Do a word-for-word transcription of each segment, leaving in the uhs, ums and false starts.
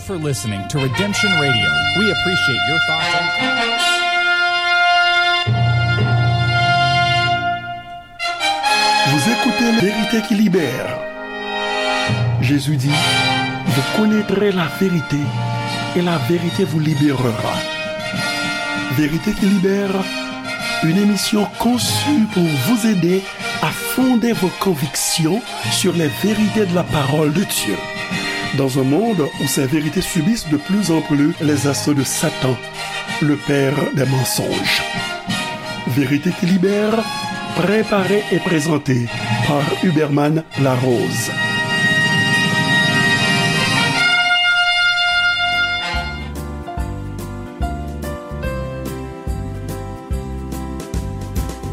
for listening to Redemption Radio. We appreciate your thoughtful. Vous écoutez La Vérité qui libère. Jésus dit, vous connaîtrez la vérité et la vérité vous libérera. Vérité qui libère, une émission conçue pour vous aider à fonder vos convictions sur les vérités de la parole de Dieu. Dans un monde où ces vérités subissent de plus en plus les assauts de Satan, le père des mensonges. Vérité qui libère, préparée et présentée par Huberman Larose.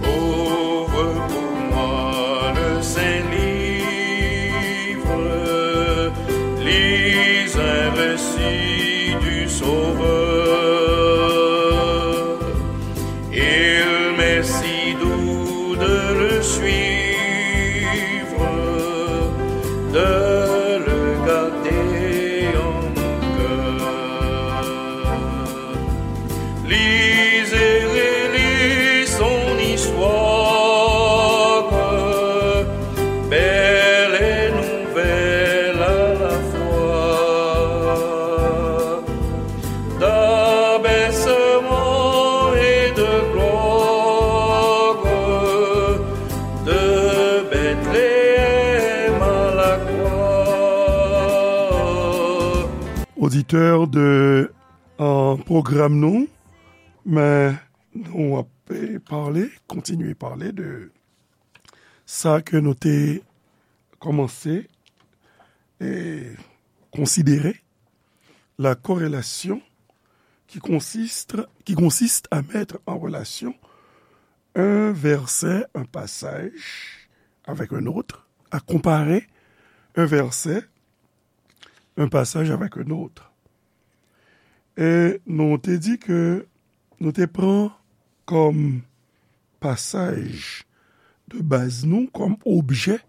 Ouvre pour moi le Saint Livre, lis un récit du Sauveur. Il m'est si doux de le suivre, de le garder en mon cœur. Lis et relis son histoire, belle et nouvelle à la fois. D'abaissement et de gloire, de Bethléem à la croix. Oditè de, euh, pwogram nou, men nou ap, eh, pale, kontinye pale de sa ke nou te kòmanse, eh, konsidere, la corrélation qui consiste, qui consiste à mettre en relation un verset, un passage avec un autre, à comparer un verset, un passage avec un autre. E nou te di ke nou te pran kòm pasaj de baz nou, kòm objè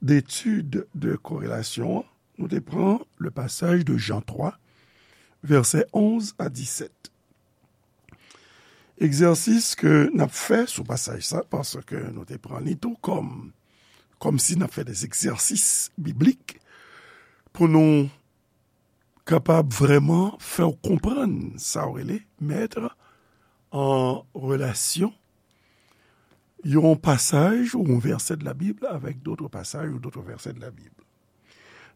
d'étude de corrélation an, nou te pran le passage de Jean trois, verset onze à dix-sept. Egzèsis ke n ap fè sou pasaj sa, paske nou te pran li tou kòm, kòm si n ap fè des exercices bibliques pou nou kapab vrèman fè w konprann sa w rele mettre en relation yon pasaj ou yon verset de la Bible avec d'autres passages ou d'autres versets de la Bible.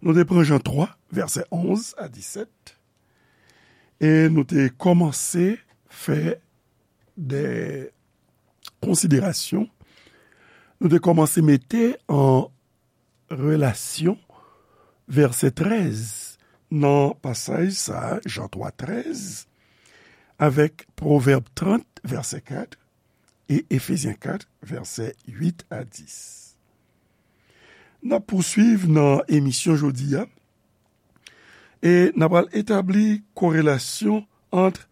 Nou te pran Jan twa, vèsè onz a disèt, e nou te kòmanse fè de konsiderasyon. Nou te kòmanse mete an relasyon vèsè trèz nan pasaj sa a, Jan twa trèz, avèk Pwovèb trant, vèsè kat, e Efezyen kat, vèsè uit a dis. N ap pouswiv nan emisyon jodi a, e n ap al etabli korelasyon ant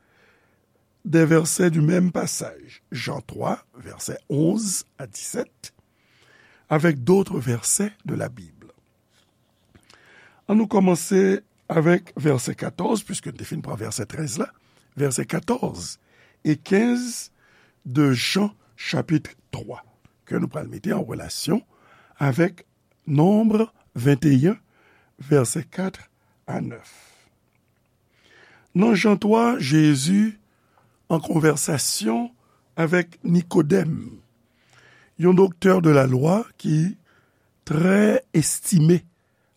de versets du même passage, Jean trois, versets onze à dix-sept, avec d'autres versets de la Bible. An nou kòmanse avèk vèsè katòz, puiske n te fin pran vèsè trèz la, vèsè katòz e kenz de Jan chapit twa, ke nou pral mete an relasyon avèk Nonb venteyen, vèsè kat a nèf. Nan Jan twa, Jezi an konvèsasyon avèk Nikodèm, yon doktè de la lwa ki trè estime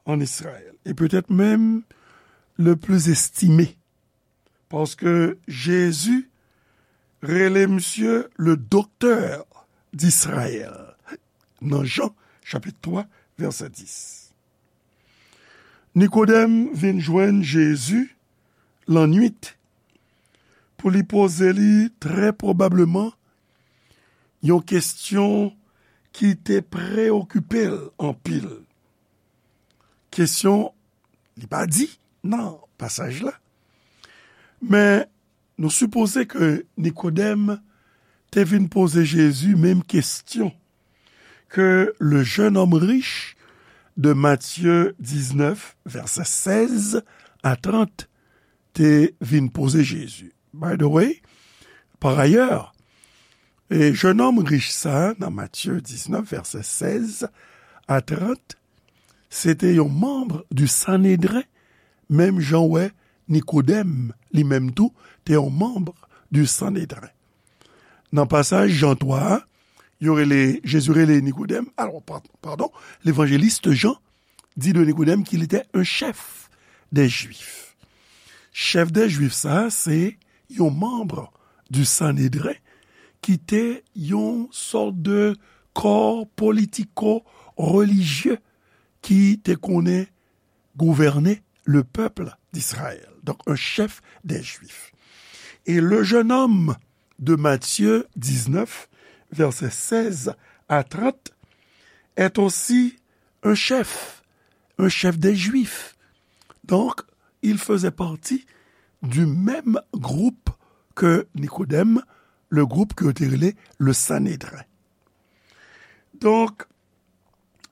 an Izrayèl, e petèt menm le pli estime, paske Jezi rele misye le doktè d'Israël, nan Jan, chapit twa, vèsè dis. Nikodèm vin jwenn Jezi lannwit pou li poze li trè pwobableman yon kesyon ki te preyokipe l anpil. Kesyon li pa di nan pasaj la, men nou sipoze ke Nikodèm te vin poze Jezi menm kesyon ke le jeune homme riche de Matthieu diznèf, vèsè sèz a trant te vin poze Jezi. By the way, pa ayè, e jennonm rich sa a, nan Matye diznèf, vèsè sèz a trant, se te yon manm di Sanedren, menm jan w wè Nikodèm, li menm tou, te yon manm di Sanedren. Nan pasaj Jan twa a, yo rele, Jezi rele Nikodèm, alò, pa-, padon, levanjelis Jan di de Nikodèm qu'il était un chef des Juifs. Chèf dè Jwif sa a, se yon manm di Sanedren ki te yon sòt de kò politiko-relijye ki te konnen gouvène le peuple d'Israël. Donc, un chef des Juifs. Et le jeune homme de Matthieu dix-neuf, versets seize à trente, est aussi un chef, un chef des Juifs. Donc, il faisait partie du même groupe que Nicodème, le groupe que yo te rele le Sanhédrin. Donk,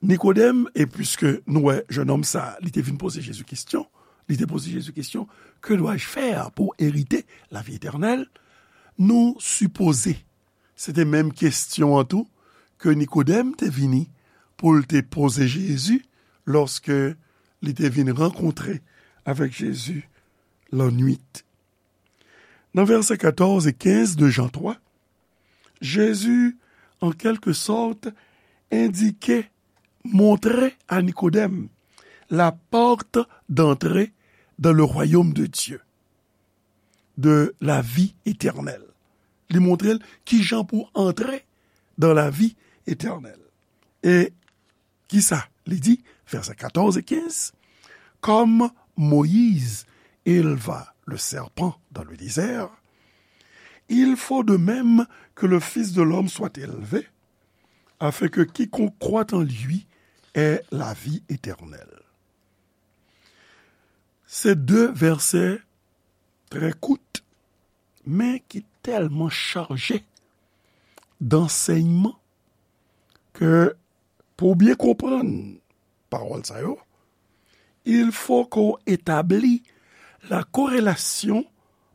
Nikodèm, e piske nou wè jennonm sa a, li te vin poze Jezi kesyon, li te poze Jezi kesyon, que dois-je faire pour hériter la vie éternelle? Nou sipoze se te menm kesyon an tou ke Nikodèm te vini pou l te poze Jezi lòske li te vin rankontre avèk Jezi lannwit. Nan vèsè katòz e kenz de Jan twa, Jezi, an kèlke sòt, endike, montre a Nikodèm la porte d'entrée dans le royaume de Dieu, de la vie éternelle. Li montre l kijan pou antre dans la vie éternelle. E kisa li di? Vèsè katòz e kenz, Comme Moïse éleva le serpent dans le désert, il faut de même que le Fils de l'homme soit élevé, afin que quiconque croit en lui ait la vie éternelle. Se de vèsè trè kout, men ki tèlman chaje dansèyman ke pou w byen konprann pawòl sa yo, il faut qu'on établit la corrélation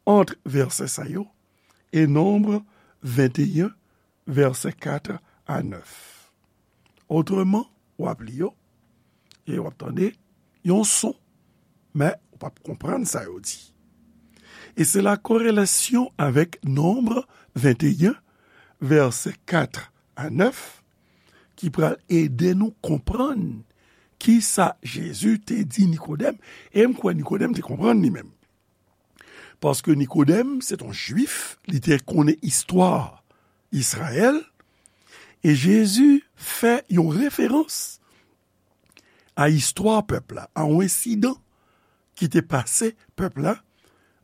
entre vèsè sa yo e Nonb venteyen, vèsè kat a nèf. Otreman, w ap li yo, e w ap tande yon son, men ou p ap konprann sa yo di. E se la korelasyon avèk Nonb venteyen, vèsè kat a nèf, ki pral ede nou konprann kisa Jezi te di Nikodèm, e m kwè Nikodèm te konprann li menm. Paske Nikodèm, se t on Jwif, li te konnen istwa Izrayèl, e Jezi fè yon referans a istwa pèp la, a yon ensidan ki te pase pèp la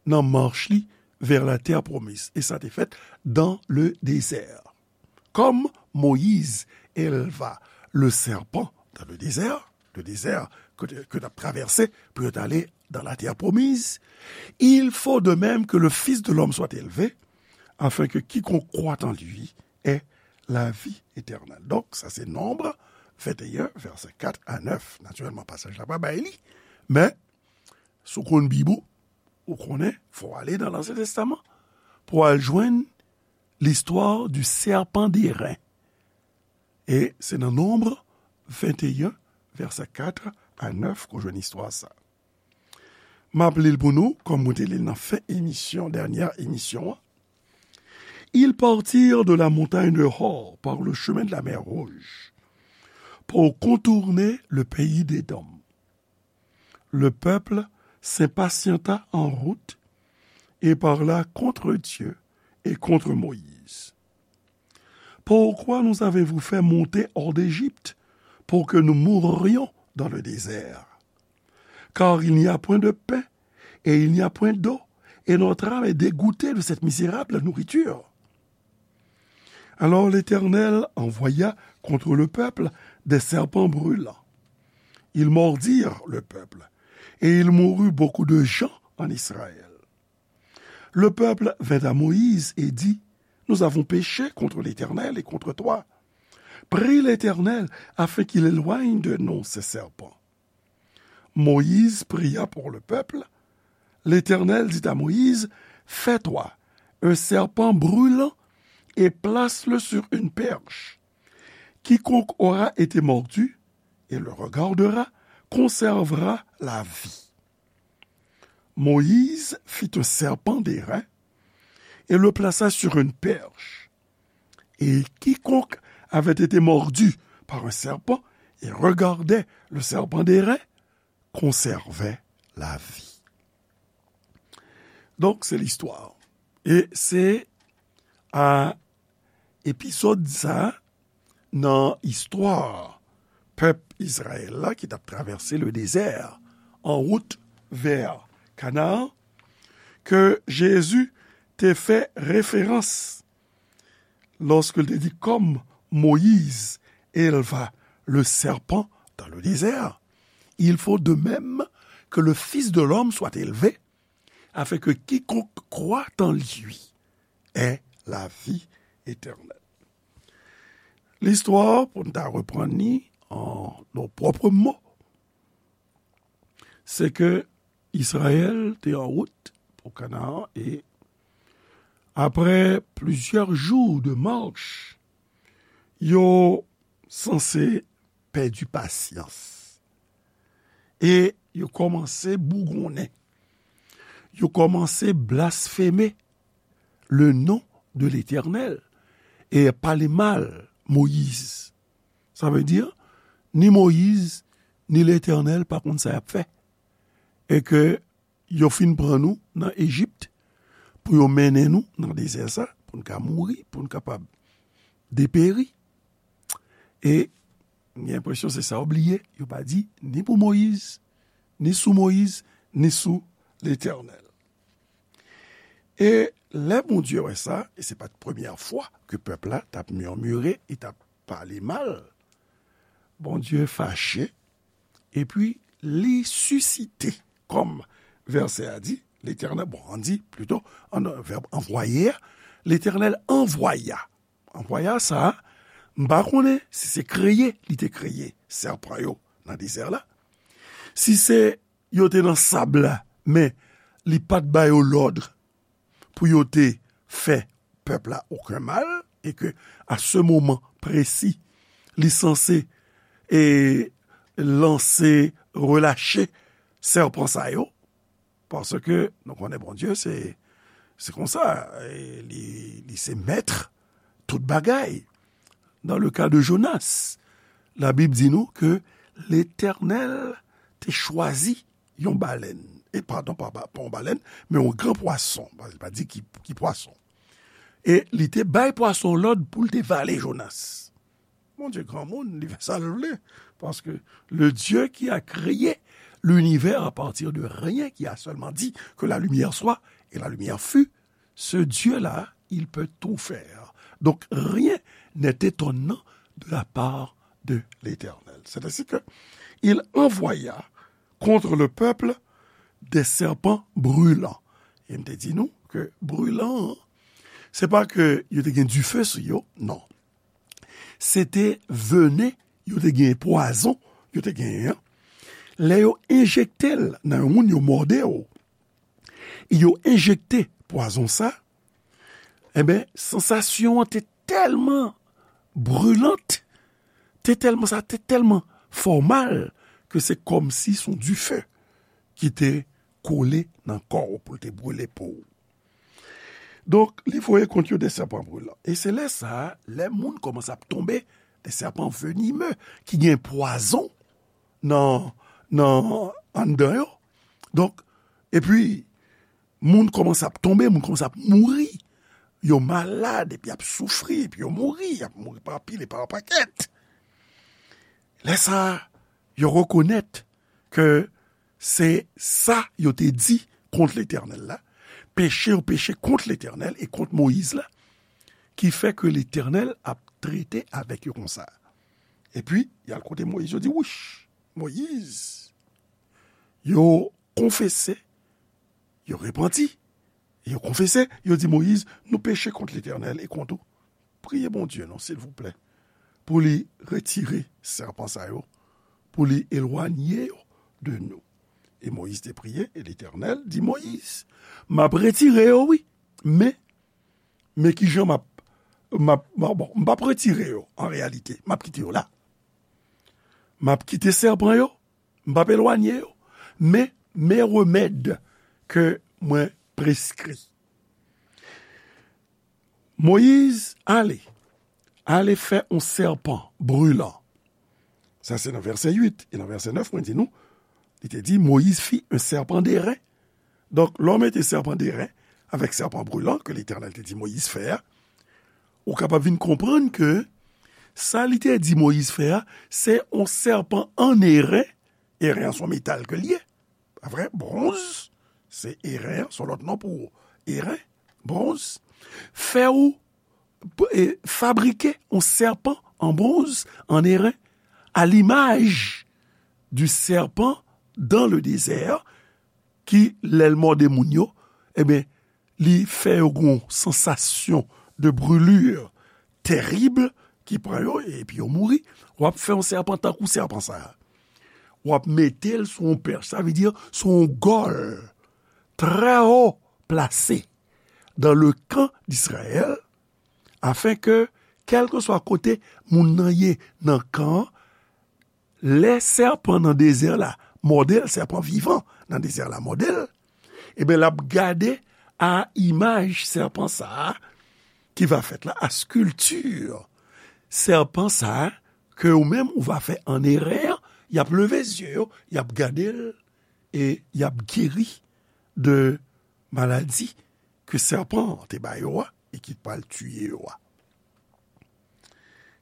nan mach li vè la tè pwomiz. E sa te fèt dans le désert. Comme Moïse éleva le serpent dans le désert, le désert que, que tu as traversé pour aller dans la terre promise, il faut de même que le Fils de l'homme soit élevé, afin que quiconque croit en lui ait la vie éternelle. Donk, sa se Nonb venteyen, vèsè kat a nèf. Natirèlman, pasaj la pa bay li, men si w konn Bib ou, ou konnen, fò w ale nan Ansyen Testaman pou w al jwenn l'histoire du serpent d'airain. E se nan Nonb venteyen, vèsè kat a nèf, ke w jwenn istwa sa. M ap li l pou nou, kòm mwen te li l nan fen emisyon, dènyè emisyon an. Ils partirent de la montagne de Hor par le chemin de la mer Rouge pour contourner le pays d'Édom. Le peuple s'impatienta en route et parla contre Dieu et contre Moïse. Pourquoi nous avez-vous fait monter hors d'Égypte pour que nous mourions dans le désert? Car il n'y a point de pain et il n'y a point d'eau, et notre âme est dégoûtée de cette misérable nourriture. Alors l'Éternel envoya contre le peuple des serpents brûlants. Ils mordirent le peuple, et il mourut beaucoup de gens en Israël. Le peuple vint à Moïse et dit, nous avons péché contre l'Éternel et contre toi. Prie l'Éternel afin qu'il éloigne de nous ces serpents. Moïse pria pour le peuple, L'Éternel dit à Moïse, fais-toi un serpent brûlant et place-le sur une perche. Quiconque aura été mordu et le regardera conservera la vie. Moïse fit un serpent d'airain et le plaça sur une perche. Et quiconque avait été mordu par un serpent et regardait le serpent d'airain conservait la vie. Donk, se listwa. E se a epizòd sa nan istwa pèp Izrayèl la ki t ap travèse le dezè an wout vè Kanaan ke Jezi te fè referans lorsqu'il te dit, comme Moïse éleva le serpent dans le désert, il faut de même que le Fils de l'homme soit élevé, afin que quiconque croit en lui ait la vie éternelle. Listwa, pou n ta reprann li an nos propres mots, se ke Izrayèl te an wout pou Kanaan e apre plizyè jou de mach, yo sanse pèdi pasyans. E yo kòmanse bougonnen. Yo kòmanse blasfeme le nom de l'Éternel e pale mal Moyiz. Sa vle di, ni Moyiz, ni Letènèl pa konn sa y ap fè. E ke yo fin pran nou nan Ejip pou yo mennen nou nan dezè sa, pou n ka mouri, pou n kapab deperi. E m gen enpresyon se sa yo bliye, yo pa di ni pou Moyiz, ni sou Moyiz, ni sou Letènèl. E lè Bondye wè sa, e se pa t premyè fwa ke pèp la t ap mimire, e t ap pale mal, Bondye fache, epi li sisite, kòm vèsè a di, Letènèl, bon, ann di, plito, an, vèb anvwaye a, Letènèl anvwaya. Anvwaya sa a, m pa konnen si se kreye li te kreye sèpan yo nan dezè la, si se yo te nan sab la, men li pa t ba yo lòd pou yo te fè pèp la okenn mal, e ke a se moman presi, li sanse, e, lanse, relache sèpan sa yo, paske nou konnen Bondye se, se konsa, e li, li se mèt tout bagay. Dans le cas de Jonas, Labib di nou ke Letènèl te chwazi yon balèn. E padon, pa, pa, pa yon balèn, men yon gran pwason. Li pa di ki, ki pwason. E li te bay pwason lòd pou l te vale Jonas. Bondye granmoun, li fè sa l vle. Parce que le Dieu qui a créé l'univers à partir de rien, qui a seulement dit que la lumière soit, et la lumière fut, ce Dieu-là, il peut tout faire. Donc, rien n'est étonnant de la part de l'Éternel. C'est ainsi que il envoya contre le peuple des serpents brûlants. E m te di nou ke brilan, se pa ke yo te gen dife sou yo, non. Se te venen, yo te gen pwazon, yo te genyen an. Lè yo enjekte l nan yon moun, yo mòde w, e yo enjekte pwazon sa, enben, sansasyon an te tèlman brilan, te tèlman, sa te tèlman fè w mal, ke se kòmsi se yon dife ki te kole nan kò w pou l te brile po w. Donk, li voye kont yo de sèpan brilan. E se lè sa a, lè moun kòmanse ap tonbe, de sèpan venimeux, ki gen pwazon nan, nan, anndan yo. Donk, epi, moun kòmanse ap tonbe, moun kòmanse ap mouri. Yo malad, epi y ap soufri, epi yo mouri, y ap mouri pa pil e pa pakèt. Lè sa a, yo rekonèt ke se sa yo te di kont Letènèl la, peche yo peche kont Letènèl e kont Moyiz la, ki fè ke Letènèl ap trete avèk yo konsa. Epi, y al kote Moyiz, yo di, wouch, Moyiz, yo konfese, yo repanti, yo konfese, yo di Moyiz, nou peche kont Letènèl e kont ou. Priye Bondye non, silvouplè, pou li retire sèpan sa yo, pou li elwanye yo de nou. E Moyiz te priye, e Letènèl di Moyiz, "M ap retire yo, wi, men, men kijan m ap, m ap, m ap, bon, m p ap retire yo, an reyalite, m ap kite yo la. M ap kite sèpan yo, m p ap elwanye yo, men, men remèd ke mwen preskri." Moyiz ale, ale fè yon sèpan brilan. Sa se nan vèsè uit. E nan vèsè nèf, mwen di nou, li te di, Moyiz fit un serpent d'airain. Donk, lè w mete sèpan d'airain avèk sèpan brilan ke Letènèl te di Moyiz fè a, ou kapab vin konprann ke sa li te di Moyiz fè a, se yon sèpan an eren. Eren an se yon metal ke l ye. Pa vre? Bwonz, se eren, se yon lòt non pou eren, bwonz. Fè ou, e, fabrike yon sèpan an bwonz, an eren, à l'image du serpent dans le désert, ki, lè l mòde moun yo, ebyen, li fè yo gen yon sansasyon de brûlure tèrib ki pran yo, epi yo mouri. W ap fè yon sèpan tankou sèpan sa a. W ap mete l sou yon pèch, sa vle di sou yon gòl trè wo plase dans le camp d'Israël, afin que, kèlkeswa kote moun nan ye nan kan an, lè sèpan nan dezè la mòde l, sèpan vivan nan dezè la mòde l, ebyen, l ap gade a imaj sèpan sa a ki va fèt la, a skilti sèpan sa a ke ou menm ou va fè an erè, y ap leve zye yo, y ap gade l, e y ap geri de maladi ke sèpan an te ba yo a e ki pral tiye yo a.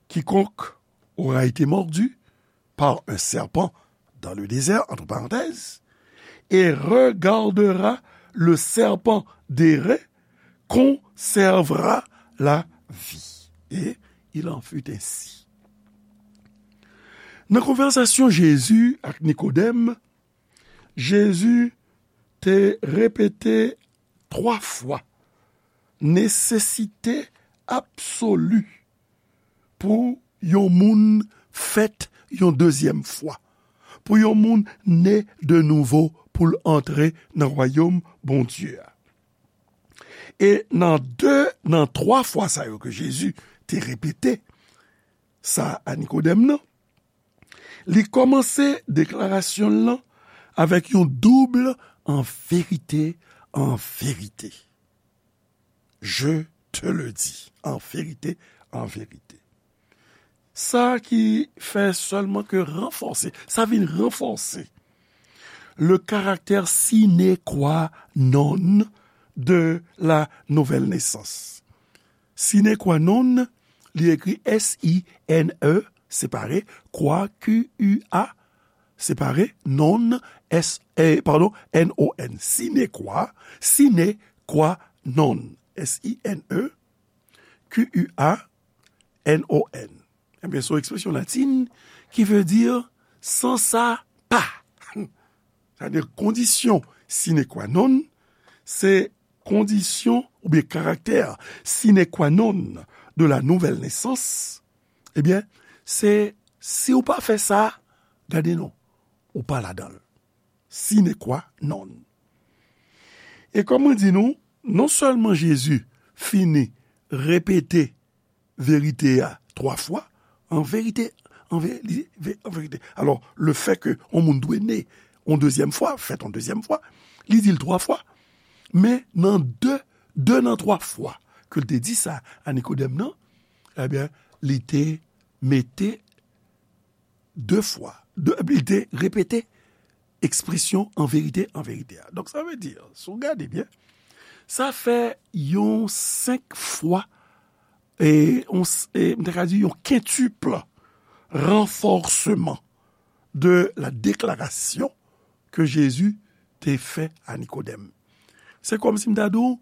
Quiconque aura été mordu par un serpent dans le désert, entre parenthèses, et regardera le serpent d'airain conservera la vie. Et il en fut ainsi. Nan konvèsasyon Jezi ak Nikodèm, Jezi te repete twa fwa nesesite absoli pou yon moun fèt yon dezyèm fwa, pou yon moun ne de nouvo pou l antre nan wayòm Bondye a. E nan de, nan twa fwa sa yo ke Jezi te repete sa a Nikodèm nan, li kòmanse deklarasyon l lan avèk yon doub "en vérité, en vérité. Je te le dis, en vérité, en vérité." Sa ki fè sèlman ke ranfòse, sa vin ranfòse le caractère sine qua non de la nouvelle naissance. Sine qua non, li ekri S I N E, separe, qua, Q U A, separe, non, S, eh, pardon, N O N. Sine qua, sine qua non. S I N E, Q U A, N O N. Ebyen, se yon ekspresyon latin ki vle di san sa pa. Sa vle di kondisyon sine qua non, se kondisyon oubyen karaktè sine qua non de la nouvelle naissance, ebyen, se si w pa fè sa, gade non, ou pa ladan l. Sine qua non. E kòm mwen di nou, non sèlman Jezi fini repete verite a twa fwa, an verite, an ve-, li, ve-, an verite. Alò, le fè ke yon moun dwe ne yon dezyèm fwa, fèt yon dezyèm fwa, li di l twa fwa, men nan de, de nan twa fwa ke l te di sa a Nikodèm nan, ebyen, li te mete de fwa, de, li te repete ekspresyon an verite, an verite a. Donk, sa vle di, si w gade byen, sa fè yon senk fwa, e, yon s-, e, m ta ka di yon quintuple renforcement de la déclaration que Jésus te fè a Nikodèm. Se kòmsi m ta di w,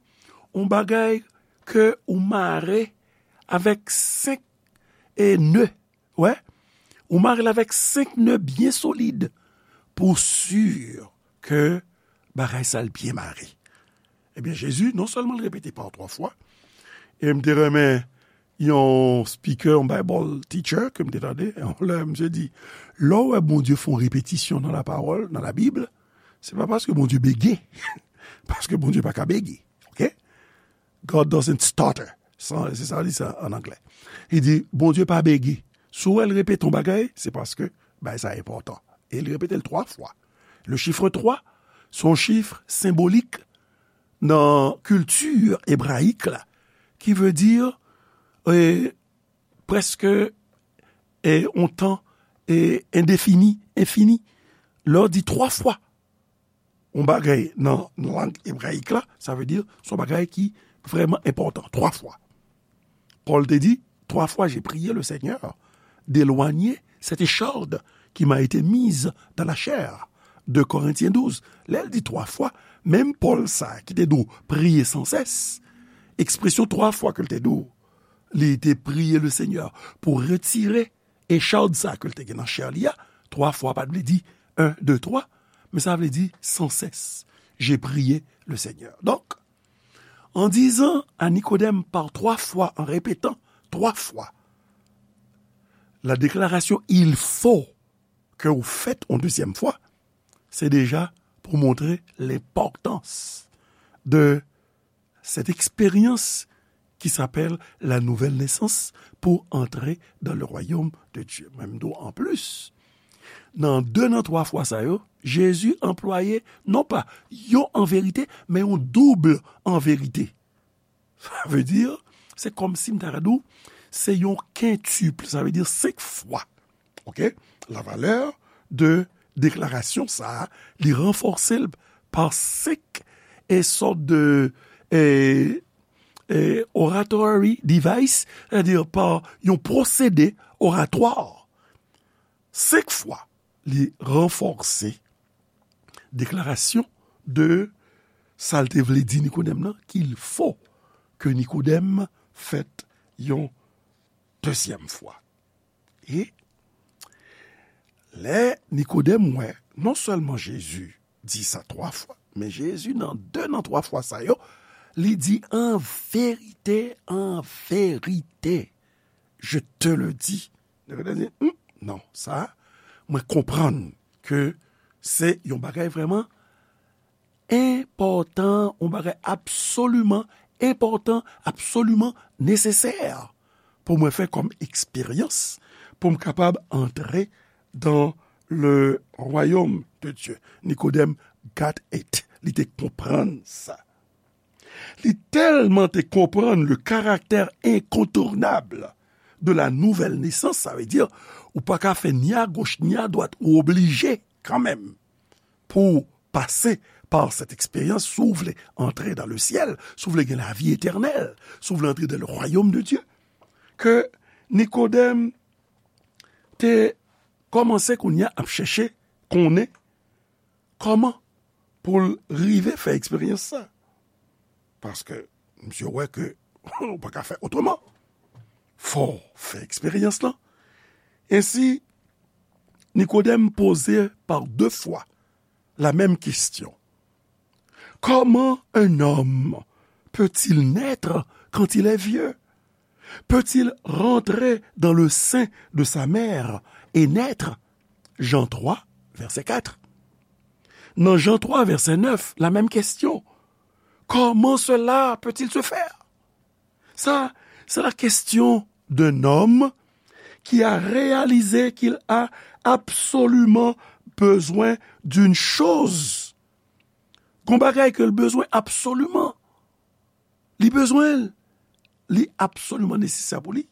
yon bagay ke ou mare avèk senk, e, ne. Wè, ou mare l avèk senk ne byen solid pou w si ke bagay sa l byen mare. Ebyen, Jezi, non sèlman l repete pa twa fwa, e m te renmen yon speaker, yon Bible teacher ke m te tande, yon lè misye di, lè w wè Bondye fè yon repetisyon nan lapawòl, nan Labib, Se pa paske Bondye bege, paske Bondye pa ka bege, oke? God doesn't stutter. Sa, se sa li di an anglè. Li di, Bondye pa bege. Si w wè l repete yon bagay, se paske bagay sa enpòtan. E li repete l twa fwa. Le chiffre twa, se yon chif senbolik nan kilti ebrayik la, ki vle di, e, prèske, e, yon tan, e, endefini, enfini. Lè w di twa fwa yon bagay nan lang ebrayik la, sa vle di se yon bagay ki vrèman enpòtan. Twa fwa. Pòl te di, trois fois j'ai prié le Seigneur d'éloigner cette écharde qui m'a été mise dans la chair. De Korentyen douz. Lè l di twa fwa, menm Pòl sa ki te dwe priye sansès, ekspresyon twa fwa ke l te dwe, li te priye le Seigneur pou retire echad sa ke l te gen nan chè li a, twa fwa pa t vle di un, deux, trois, men sa vle di sansès. J'ai prié le Seigneur. Donc, en disant à Nicodème par trois fois, en répétant trois fois la déclaration il faut que vous faites en deuxième fois, c'est déjà pour montrer l'importance de cette expérience qui s'appelle la nouvelle naissance pour entrer dans le royaume de Dieu. Menm tou, an plis, nan de nan twa fwa sa yo, Jezi anplwaye non pa yon an verite, men yon doub an verite. Sa vle di, se kòmsi m ta ka di w, se yon kentip, sa vle di senk fwa. Oke? La valeur de deklarasyon sa a, li ranfòse l pa senk e sòt de, e, e, oratory device, sètadi pa yon pwosede oratwa. Senk fwa, li ranfòse deklarasyon de sa l te vle di Nikodèm nan, qu'il faut que Nikodèm fèt yon dezyèm fwa. E lè Nikodèm wè, non sèlman Jezi di sa twa fwa, men Jezi nan de nan twa fwa sa yo, li di, an verite, an verite, je te le dis. Nikodèm di, hmm, non, sa, mwen konprann ke se yon bagay vrèman enpòtan, yon bagay absoliman enpòtan, absoliman nesesè pou mwen fè kòm eksperyans, pou m kapab antre dans le royaume de Dieu. Nikodèm got it. Li te konprann sa. Li tèlman te konprann le caractère incontournable de la nouvelle naissance, sa vle di, ou pa ka fè ni a goch ni a dwat, ou oblije kanmenm pou pase pa sèt eksperyans, si w vle antre dans le ciel, si w vle gen lavi etènèl, si w vle antre dans le royaume de Dieu, ke Nikodèm te kòmanse kounye a ap chèche konnen kòman pou l rive fè eksperyans sa. Paske misye wè ke ou pa ka fè otreman. Fò w fè eksperyans lan. Ensi, Nikodèm poze par deux fois la même question. Comment un homme peut-il naître quand il est vieux? Peut-il rentrer dans le sein de sa mère et naître? Jean trois, verset quatre. Dans Jean trois, verset neuf, la même question. Comment cela peut-il se faire? Ça, c'est la question d'un homme qui a réalisé qu'il a absolument besoin d'une chose. Gon bagay ke l bezwen absoliman. Li bezwen l. Li absoliman nesesè pou li.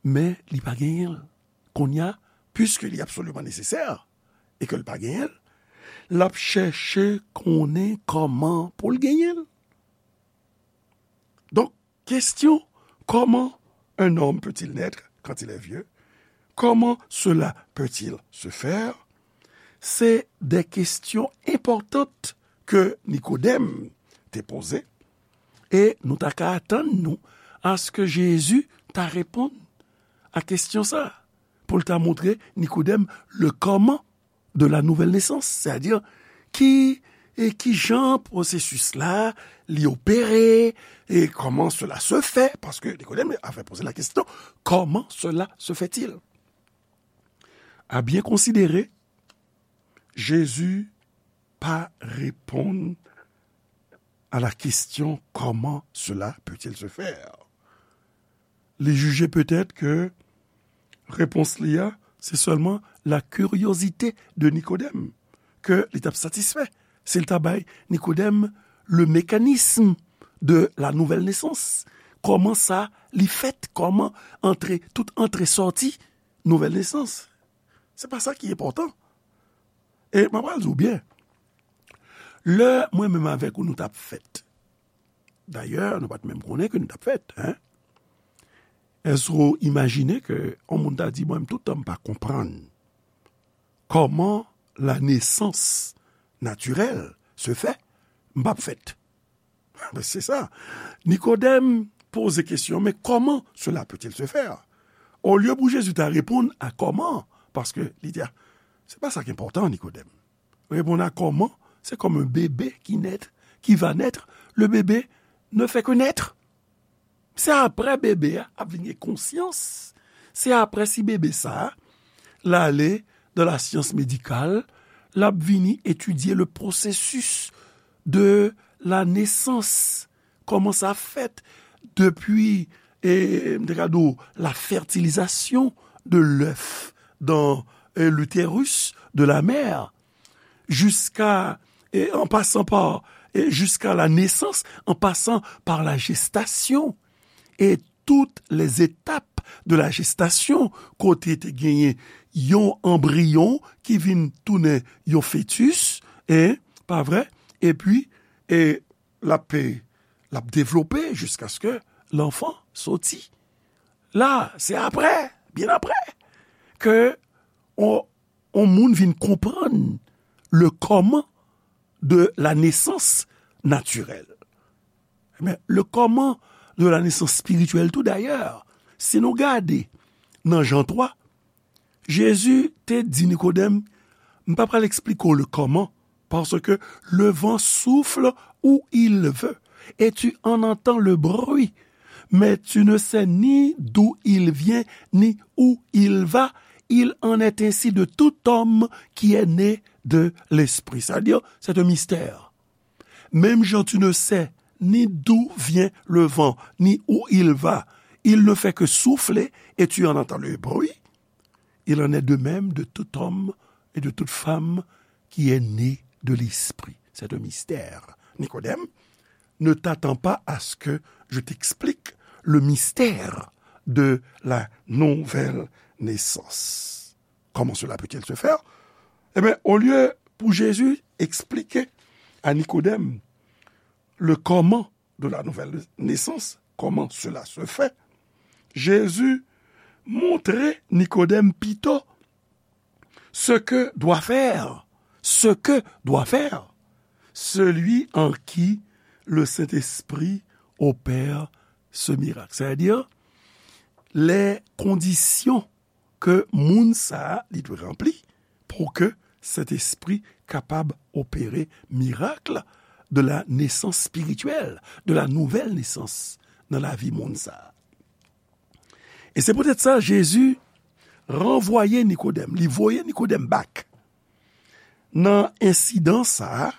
Men li pa genyen l. Kounye a, piske li absoliman nesesè e ke l pa genyen l, l ap chèche konnen kòman pou l genyen l. Donk, kesyon, comment un homme peut-il naître quand il est vieux? Comment cela peut-il se faire? Se de kesyon enpòtan ke Nikodèm te poze, e nou ta ka atann nou aske Jezi ta reponn a kesyon sa, pou l ta montre Nikodèm le comment de la nouvelle naissance, sètadi ki, e ki jan pwosesis la, li opere, e comment cela se fait, paske Nikodèm avait posé la question, comment cela se fait-il? À bien considérer, Jésus pa reponn à la question comment cela peut-il se faire. Li jije petèt ke repons li a, se sèlman la curiosité de Nikodèm ke li t ap satisfè si l ta bay Nikodèm le mécanisme de la nouvelle naissance. Kòman sa li fèt? Kòman antre, tout antre sòti nouvelle naissance? Se pa sa ki enpòtan. E mwen pral di w byen, lè mwen menm avèk ou nou t ap fèt, dayè, nou pa t menm konnen ke nou t ap fèt, en. Èske w imajine ke yon moun ta di, mwen menm, tout tan m pa konprann kòman la naissance naturelle se fait, m p ap fèt? Se sa. Nikodèm poze kesyon, men comment cela peut-il se faire? Olye pou Jezi ta reponn a kòman, paske li di, a, se pa sa ki enpòtan, Nikodèm. Reponn a kòman, c'est comme un bébé qui naît, qui va naître. Le bébé ne fait que naître. Se apre bebe a ap vin gen konsyans. Se apre si bebe sa a, l ale dans la science médicale, l ap vini etidye le processus de la naissance. Kòman sa fèt depi, e, m te ka di w, la fertilisation de l'œuf dans, e, l'utérus de la mère, jusqu'à, e, en passant par, e, jusqu'à la naissance, en passant par la gestation, et toutes les étapes de la gestation, kote te genyen yon anbriyon ki vin tounen yon fetis, e, pa vre? Epi, e, l ap, l ap devlope jiskaske l'enfant soti. La, se apre, byen apre, ke on, on moun vin konprann le comment de la naissance naturelle. Ebyen, le comment de la naissance spirituelle tou, dayè, si nou gade nan Jan twa, Jezi te di Nikodèm, m pa pral eksplike w le comment, parce que le vent souffle où il veut, et tu en entends le bruit, mais tu ne sais ni d'où il vient, ni où il va. Il en est ainsi de tout homme qui est né de l'Esprit. C'est-à-dire, c'est un mystère. Même Jean, tu ne sais ni d'où vient le vent, ni où il va. Il ne fait que souffler et tu en entends le bruit. Il en est de même de tout homme et de toute femme qui est né de l'Esprit. C'est un mystère. Nikodèm, ne t'attends pas à ce que je t'explique le mystère de la nouvelle naissance. Comment cela peut-il se faire? Ebyen, olye pou Jezi eksplike a Nikodèm le comment de la nouvelle naissance, comment cela se fait, Jezi montre Nikodèm pito ce que doit faire, ce que doit faire celui en qui le Saint-Esprit opère ce miracle. C'est-à-dire, les conditions ke moun sa a li dwe ranpli pou ke Sentespri kapab opere mirak de la nesans espirityèl, de la nouvelle naissance nan lavi moun sa a. E se poutèt sa, Jezi ranvwaye Nikodèm, li voye Nikodèm back nan ensidan sa a,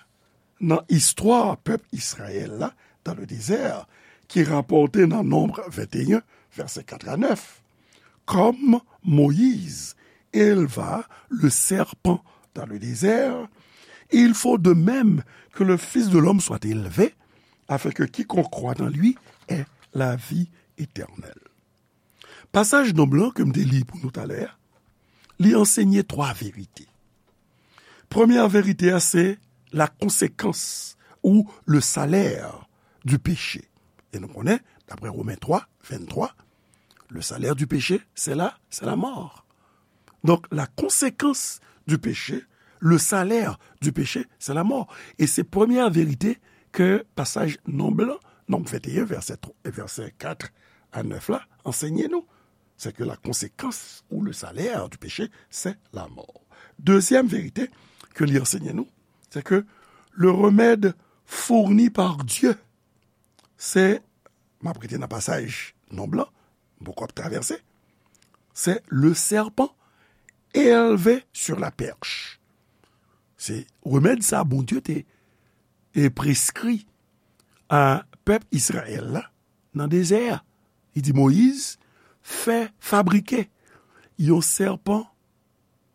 nan istwa pèp Izrayèl la dans le désert, ki rapòte nan Nonb venteyen, vèsè kat a nèf. Comme Moïse éleva le serpent dans le désert, il faut de même que le Fils de l'homme soit élevé, afin que quiconque croit en lui ait la vie éternelle. Pasaj Nonb lan ke m te li pou nou talè a, li ansenye twa verite. Premyè verite a, se la conséquence ou le salaire du péché. E nou konnen, daprè Women twa, venntwa, le salaire du péché, c'est la, c'est la mort. Donc, la conséquence du péché, le salaire du péché, c'est la mort. E se premyè verite ke pasaj Nonb lan, Nonb venteyen, vèsè twa, vèsè kat a nèf la, ansenye nou. C'est que la conséquence ou le salaire du péché, c'est la mort. Dezyèm verite ke li ansenye nou, c'est que le remède fourni par Dieu, se, m ap rete nan pasaj Nonb lan, m poko ap travèse, c'est le serpent élevé sur la perche. Se remèd sa Bondye te e preskri a pèp Izrayèl la nan dezè a. Li di Moyiz, fè fabrike yon sèpan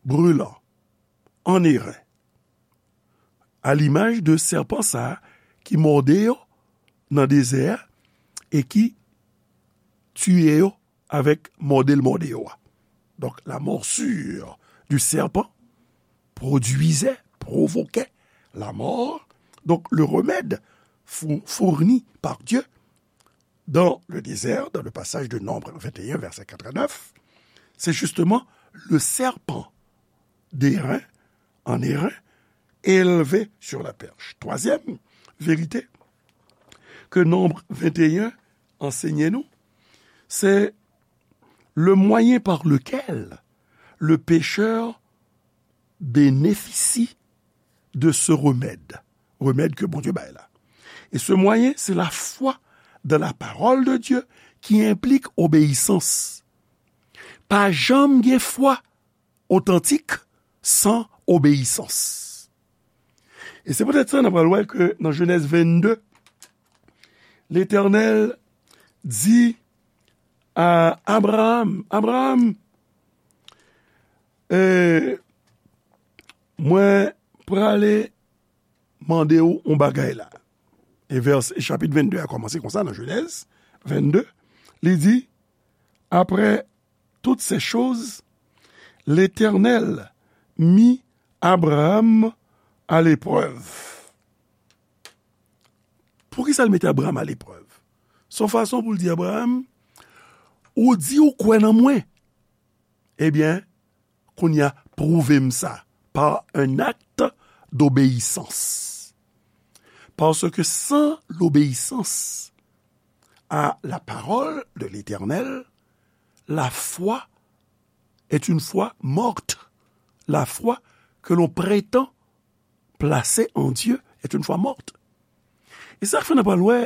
brilan an eren, a limaj de sèpan sa a ki mòde yo nan dezè a e ki tiye yo avèk mòde l mòde yo a. Donc, la morsure du serpent produisait, provoquait la mort. Donc, le remède fou- fourni par Dieu dans le désert, dans le passage de Nombre vingt et un, verset quatre à neuf, c'est justement le serpent d'airain, en airain, élevé sur la perche. Troisième vérité que Nombre vingt et un enseigne nous, c'est le moyen par lequel le pécheur bénéficie de ce remède, remède que Bondye bay la. Et ce moyen, c'est la foi dans la parole de Dieu qui implique obéissance. Pa janm gen fwa otantik san obeyisans. E se poutèt sa, n ap pral wè ke nan Jenèz vennde, Letènèl di a Abraram, Abraram, e, mwen prale mande w yon bagay la. E vèsè, chapit vennde a kòmanse konsa nan Jenèz vennde, li di, après toutes ces choses, l'Éternel mit Abraham à l'épreuve. Poukisa l mete Abraham aleprèv? Se yon fason pou l di Abraham, ou di ou kwè nan mwen. Ebyen, kounye a, pwouve m sa par un acte d'obéissance. Parce que sans l'obéissance à la parole de l'Éternel, la foi est une foi morte. La foi que l'on prétend placée en Dieu est une foi morte. E sa k fè n ap pral wè,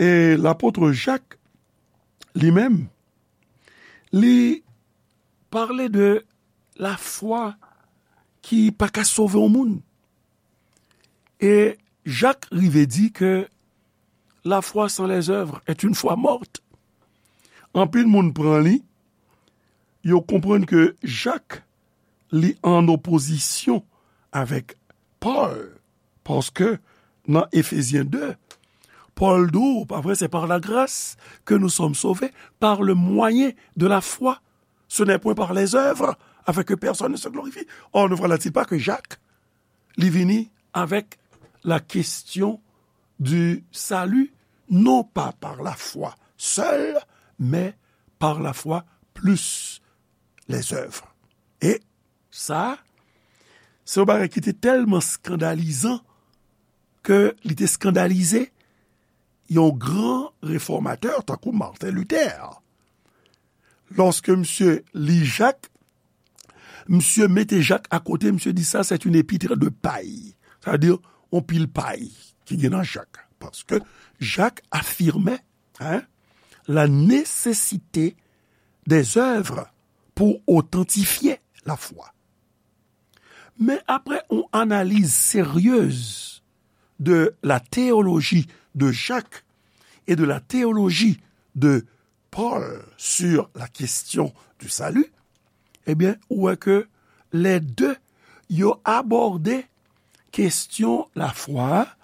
e lapot Jak, li menm, li pale de lafwa ki pa ka sove yon moun. E Jak rive di ke la foi sans les œuvres est une foi morte. Anpil moun pran li, yo konprann ke Jak, li an opozisyon avèk Pòl, paske nan Efezyen de, Pòl di w, pa vre, c'est par la grâce que nous sommes sauvés, par le moyen de la foi. Ce n'est point par les œuvres, afin que personne ne se glorifie. Or, ne voilà-t-il pas que Jacques, li vini avec la question du salut, non pas par la foi seule, mais par la foi plus les œuvres. E sa, se yon bagay ki te tèlman eskandalizan ke li te eskandalize yon gran refòmatè tankou Martin Luther. Lòske misye li Jak, misye mete Jak akote, misye di sa, c'est une épître de paille. Sa vle di, yon pil pay ki gen nan Jak. Paske Jak afime, hein, la nécessité des œuvres pour authentifier la foi. Men apre yon analiz seryez de la théologie de Jacques et de la théologie de Paul sur la question du salut, ebyen, ou wè ke les deux, yo abòde kesyon lafwa a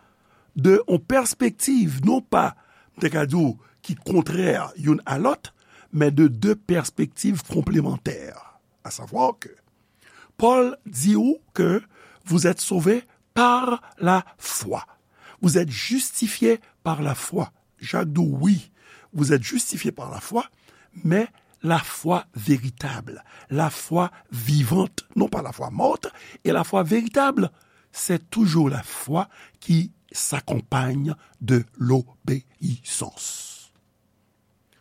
de yon pèspektiv, non pa, m te ka di w, ki kontrè youn a lòt, men de de pèspektiv konplemantè. A savwa ke Pòl di w ke vous êtes sauvés par la foi. Vous êtes justifiés par la foi. Jak di w, wi, vous êtes justifiés par la foi, men la foi véritable, la foi vivante, non pas la foi morte, et la foi véritable, c'est toujours la foi qui s'accompagne de l'obéissance.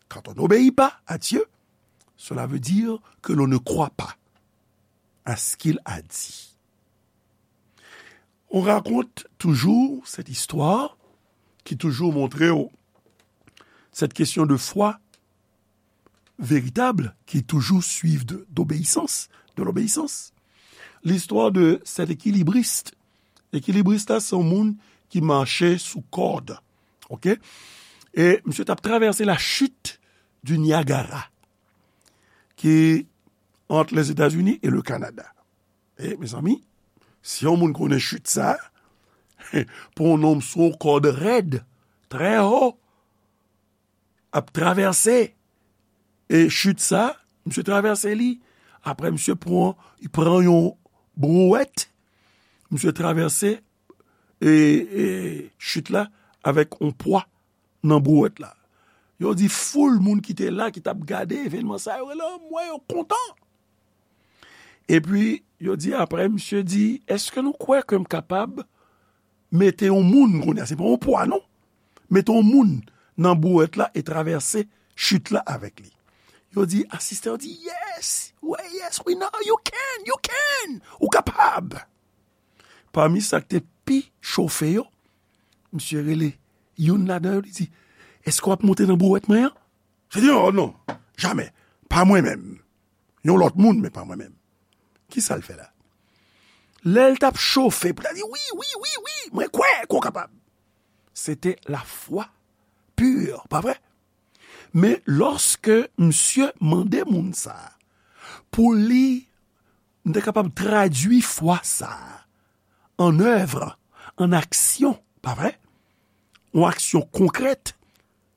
Quand on n'obéit pas à Dieu, cela veut dire que l'on ne croit pas à ce qu'il a dit. On raconte toujours cette histoire qui toujours montre cette question de foi véritable qui toujours suivent de, d'obéissance, de l'obéissance. l'histoire de cet équilibriste. Ekilibrist la, se yon moun ki mache sou kòd. Oke? E misye t ap travèse la chute du Niagara, ki entre les États-Unis et le Canada. E, mezanmi, si yon moun konnen chute sa, pou yon nonm sou yon kòd rèd, trè wo, ap travèse, e chute sa, misye travèse li. Apre, misye pran, li pran yon brouette, misye travèse, e, e chute la avèk yon pwa nan brouette la. Yo di foul moun ki te la, ki t ap gade evènman sa, yo rele anmwe, yo kontan. Epi, yo di apre, misye di, èske nou kwè ke m kapab mete yon moun, kounye a, se pa yon pwa, non. Mete yon moun nan brouette la e travèse chute la avèk li. Yo di, asistè yo di, yes, we, yes, we know, you can, you can, ou kapab. Pami sa k te pi chofe yo, misye rele youn ladan yo, li di, èske w ap monte nan brouette mwen an? Misye di, oh non, jamè, pa mwen menm. Yon lòt moun, men pa mwen menm. Kisa l fè la? Lè l t ap chofe, pou l di, wi, wi, wi, wi, mwen kwè ke w kapab. Se te lafwa pi, pa vre? Men lòske misye mande moun sa a pou li, m te kapab tradui fwa sa a an èv, an aksyon, pa vre? Yon aksyon konkrèt.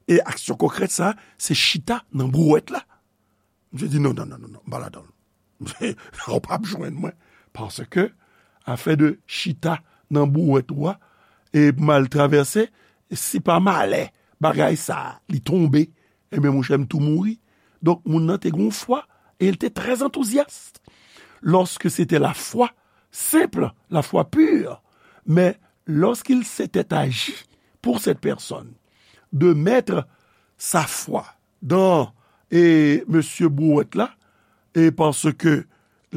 E aksyon konkrèt sa a, se chita nan brouette la. Misye di, non, non, non, non, non, m pa ladan l. Ou p ap jwenn mwen. Paske, afè de chita nan brouette ou a, e m al travèse, si pa malè, bagay sa a, li tonbe, ebyen, monchè, m tou mouri. Donk, moun nan te gen yon fwa, e l te trè antouzyas. Lorsque c'était la foi simple, la foi pure, mais lorsqu'il s'était agi pour cette personne de mettre sa foi dans, e, mesye brouette la, e paske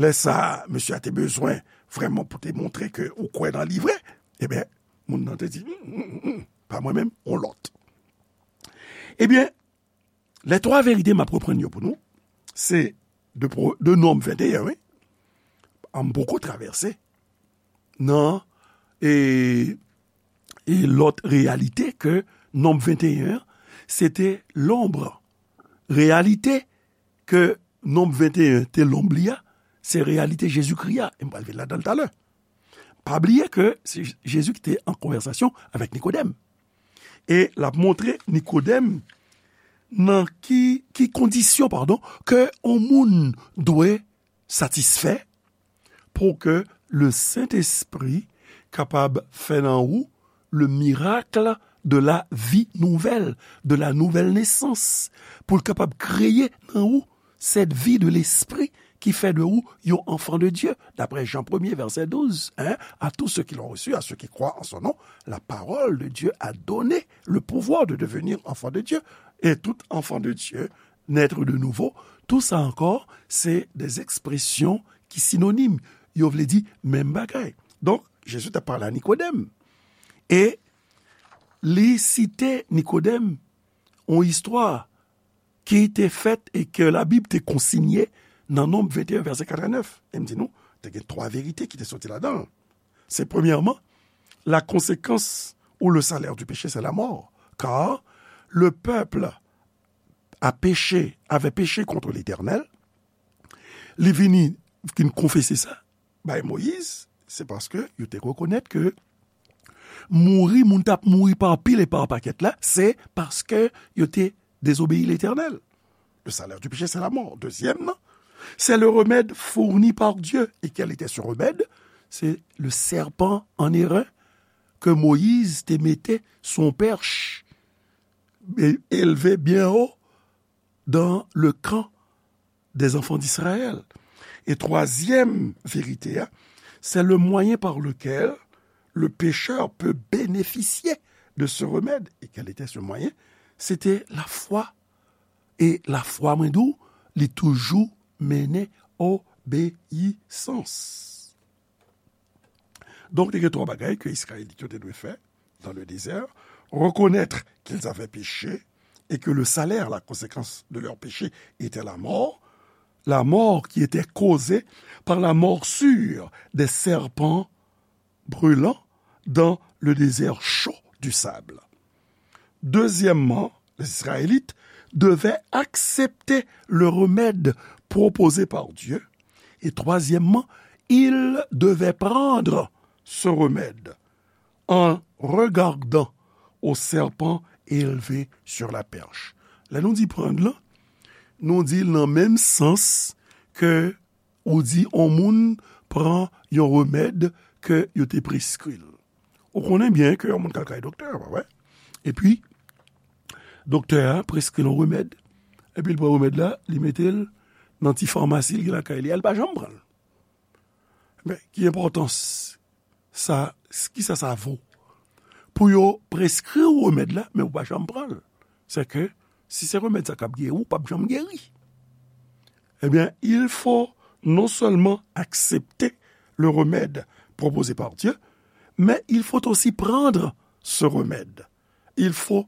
lè sa a, mesye a te bezwen vrèman pou te montre ke ou kwè nan li vre, ebyen, moun nan te di, "Mm, mm, mm, pa mwen menm, on lòt." Ebyen, lè twa verite m ap reprann yo pou nou, se de, Pro- de Nonm venteyen, wi. An m poko travèse nan, e, e lòt reyalite ke Nonm venteyen an, se te lonb. Reyalite ke Nonm venteyen te lonb li a, se reyalite Jezikri a. E m pral vin ladan l talè. Pa bliye ke se Jezi ki te an konvèsasyon avèk Nikodèm. E l ap montre Nikodèm nan ki, ki kondisyon, padon, ke yon moun dwe satisfè pou ke le Sentespri kapab fè nan ou le miracle de la vie nouvelle, de la nouvelle naissance, pou l kapab kreye nan ou cette vie de l'esprit qui fait de vous yon enfant de Dieu, d'après Jean premier, verset douze, hein, à tous ceux qui l'ont reçu, à ceux qui croient en son nom, la parole de Dieu a donné le pouvoir de devenir enfant de Dieu. Et tout enfant de Dieu, naître de nouveau, tout sa ankò, se de ekspresyon ki sinonim. Yo vle di menm bagay. Donk, Jezi t ap pale a Nikodèm. E li site Nikodèm yon istwa ki te fèt e ke Labib te konsinye nan Nonb venteyen, vèsè katrevennèf. E m di nou, te gen twa verite ki te soti ladan l. Se premyèman, la conséquence ou le salaire du péché, c'est la mort. Car le peuple a péché, avait péché contre l'Éternel. Li vini, vin konfese sa bay Moyiz, se paske yo te rekonèt ke mouri, moun t ap mouri pa pil e pa pakèt la, se paske yo te désobéi Letènèl. Le salaire du péché, c'est la mort. Dezyèm nan, c'est le remède fourni par Dieu. Et quel était ce remède? Se le serpent en airain ke Moyiz te mete sou yon pèch, e, elve byen wo dans le camp des enfants d'Israël. E twazyèm verite a, c'est le moyen par lequel le pécheur peut bénéficier de ce remède. Et quel était ce moyen? Se te lafwa. E lafwa, mwen di w, li toujou mennen obeyisans. Donk, te gen twa bagay ke Izrayelit yo te dwe fè dans le désert. Reconnaître qu'ils avaient péché et que le salaire, la conséquence de leur péché, était la mort. la mort qui était causée par la morsure des serpents brûlants dans le désert chaud du sable. Deuxièmement, les Israélites devaient accepter le remède proposé par Dieu. Et troisièmement, ils devaient prendre ce remède en regardant au serpent élevé sur la perche. Lè nou di pran l, nou di l nan menm sans ke ou di yon moun pran yon remèd ke yo te preskri l. Ou konnen byen ke yon moun k al kay doktè, pa vre? Epi, doktè a preskri l yon remèd. Epi l pran remèd la, li mete l nan ti famasi l gen lakay li a, li pa janm pran l. Men, ki enpòtans sa, kisa sa vo? Pou yo preskri w remèd la, men ou pa janm pran l. Se ke, si se remèd sa k ap geri w, ou p ap janm geri. Eh bien, il faut non seulement accepter le remède proposé par Dieu, mais il faut aussi prendre ce remède. Il faut,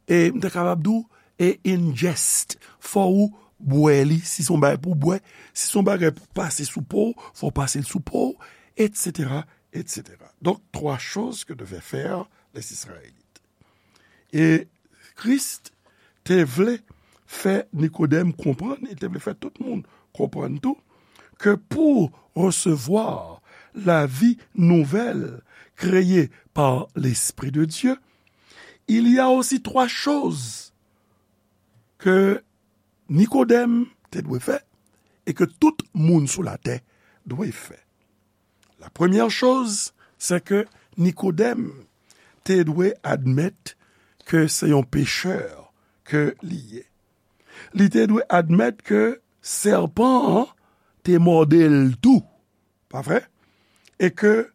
e m ta kapab di w, e ingest. Fò ou bwè li, si se yon bagay pou w bwè, si se yon bagay pou pase sou po w, fò w pase l sou po w, et cetera, et cetera. Donc, trois choses que devaient faire les Israélites. E Kris te vle fè Nikodèm konprann, li te vle fè tout moun konprann tou, ke pou resevwa la vie nouvelle créée par l'Esprit de Dieu, il y a aussi trois choses que Nikodèm te dwe fè e ke tout moun sou latè dwe fè. La première chose, c'est que Nikodèm te dwe admèt ke se yon pechè ke li ye. Li te dwe admèt ke sèpan an te mòde l tou, pa vre? E ke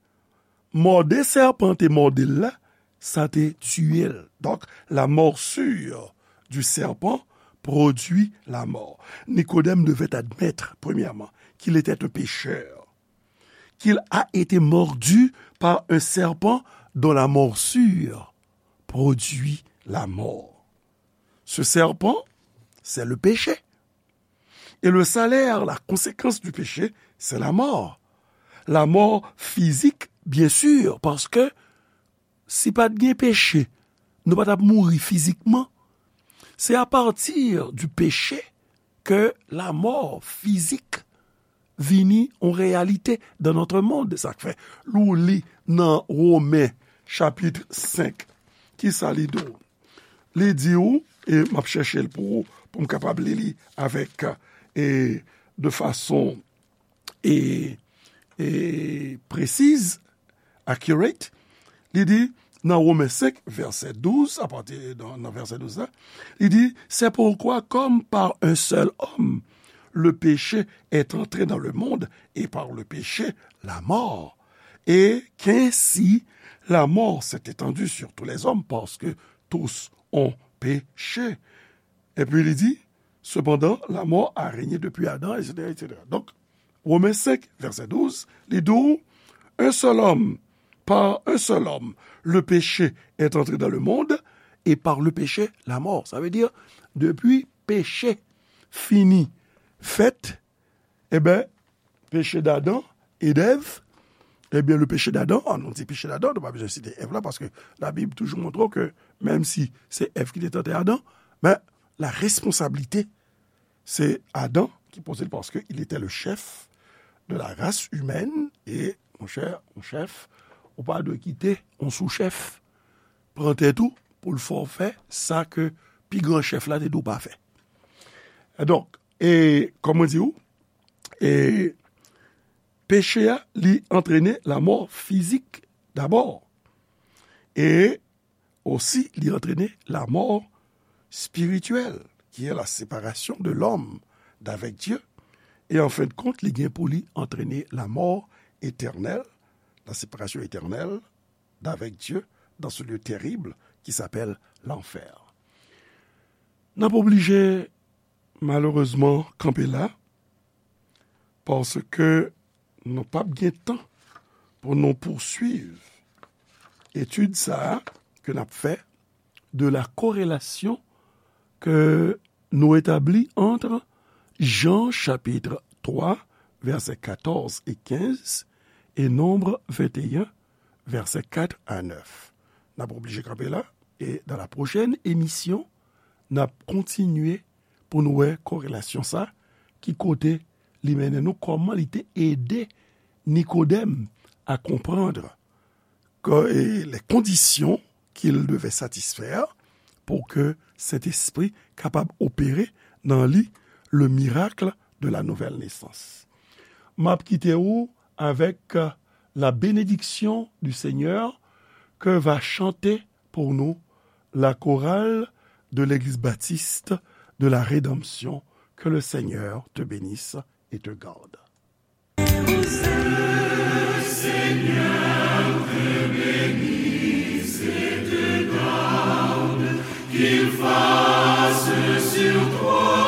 mòde sèpan te mòde l la, sa te tiye l. Donc, la morsure du serpent produit la mort. Nikodèm devait admettre, premièrement, qu'il était un pécheur, qu'il a été mordu par un serpent dont la morsure produit la mort. Ce serpent, c'est le péché. Et le salaire, la conséquence du péché, c'est la mort. La mort physique, bien sûr, parce que si pa t gen peche, nou pa t ap mouri fizikman. C'est à partir du péché que la mort physique vini yon réalité dans notre monde. Sa k fè, lè w li nan Women, chapit senk, ki sa li di w? Li di w, e m ap chèche l pou ou, pou m kapab li li avèk, e, de fason, e, e, presiz, accurate, li di, nan Women senk, vèsè douz, apati nan, nan vèsè douz la, li di, c'est pourquoi, comme par un seul homme, le péché est entré dans le monde, et par le péché, la mort. Et qu'ainsi, la mort s'est étendue sur tous les hommes, parce que tous ont péché. Epi li di, cependant, la mort a régné depuis Adam, et cetera, et cetera. Donk, Women senk, vèsè douz, li di w, un seul homme, par un seul homme, le péché est entré dans le monde, et par le péché, la mort. Sa vle di, depi peche fini fèt, e ben, péché d'Adam et d'Ève, eh bien, le péché d'Adam, ah, nou di péché d'Adam, nou pa bezwen site Èv la, paske Labib toujou montre w ke, menm si se Èv ki te tante Adan, men la responsabilite, se Adan ki poze l, paske il était le chef de la race humaine, e, monchè, yon chèf, ou pa dwe kite yon sou-chèf pran tèt ou pou l fè w fè sa ke pi gran chèf la te di w pa fè. E donk, e, kòm mwen di w, e, peche a, li antrene lanmò fizik dabò. E osi, li antrene lanmò spirityèl, qui est la séparation de l'homme d'avec Dieu. E an fen de kont, li gen pou li antrene lanmò etènèl, la séparation éternelle d'avec Dieu dans ce lieu terrible qui s'appelle l'enfer. N ap oblije, malerezman, kanpe la, paske nou p ap gen tan pou nou pouswiv etid sa a ke n ap fè de la corrélation que nous établit entre Jan chapit twa, vèsè katòz e kenz, e Nonb venteyen, vèsè kat a nèf. N ap oblije kanpe la, e dans la prochaine émission, n ap kontinye pou nou wè korelasyon sa, ki kote li mennen nou, kòman li te ede Nikodèm a konprann ke, e, les conditions qu'il devait satisfaire pour que Sentespri kapab opere nan li le miracle de la nouvelle naissance. M ap kite ou avec, euh, la bénédiction du Seigneur que va chanter pour nous la chorale de l'Église baptiste de la Rédemption. Que le Seigneur te bénisse et te garde. Seigneur te bénisse et te garde, qu'il fasse sur toi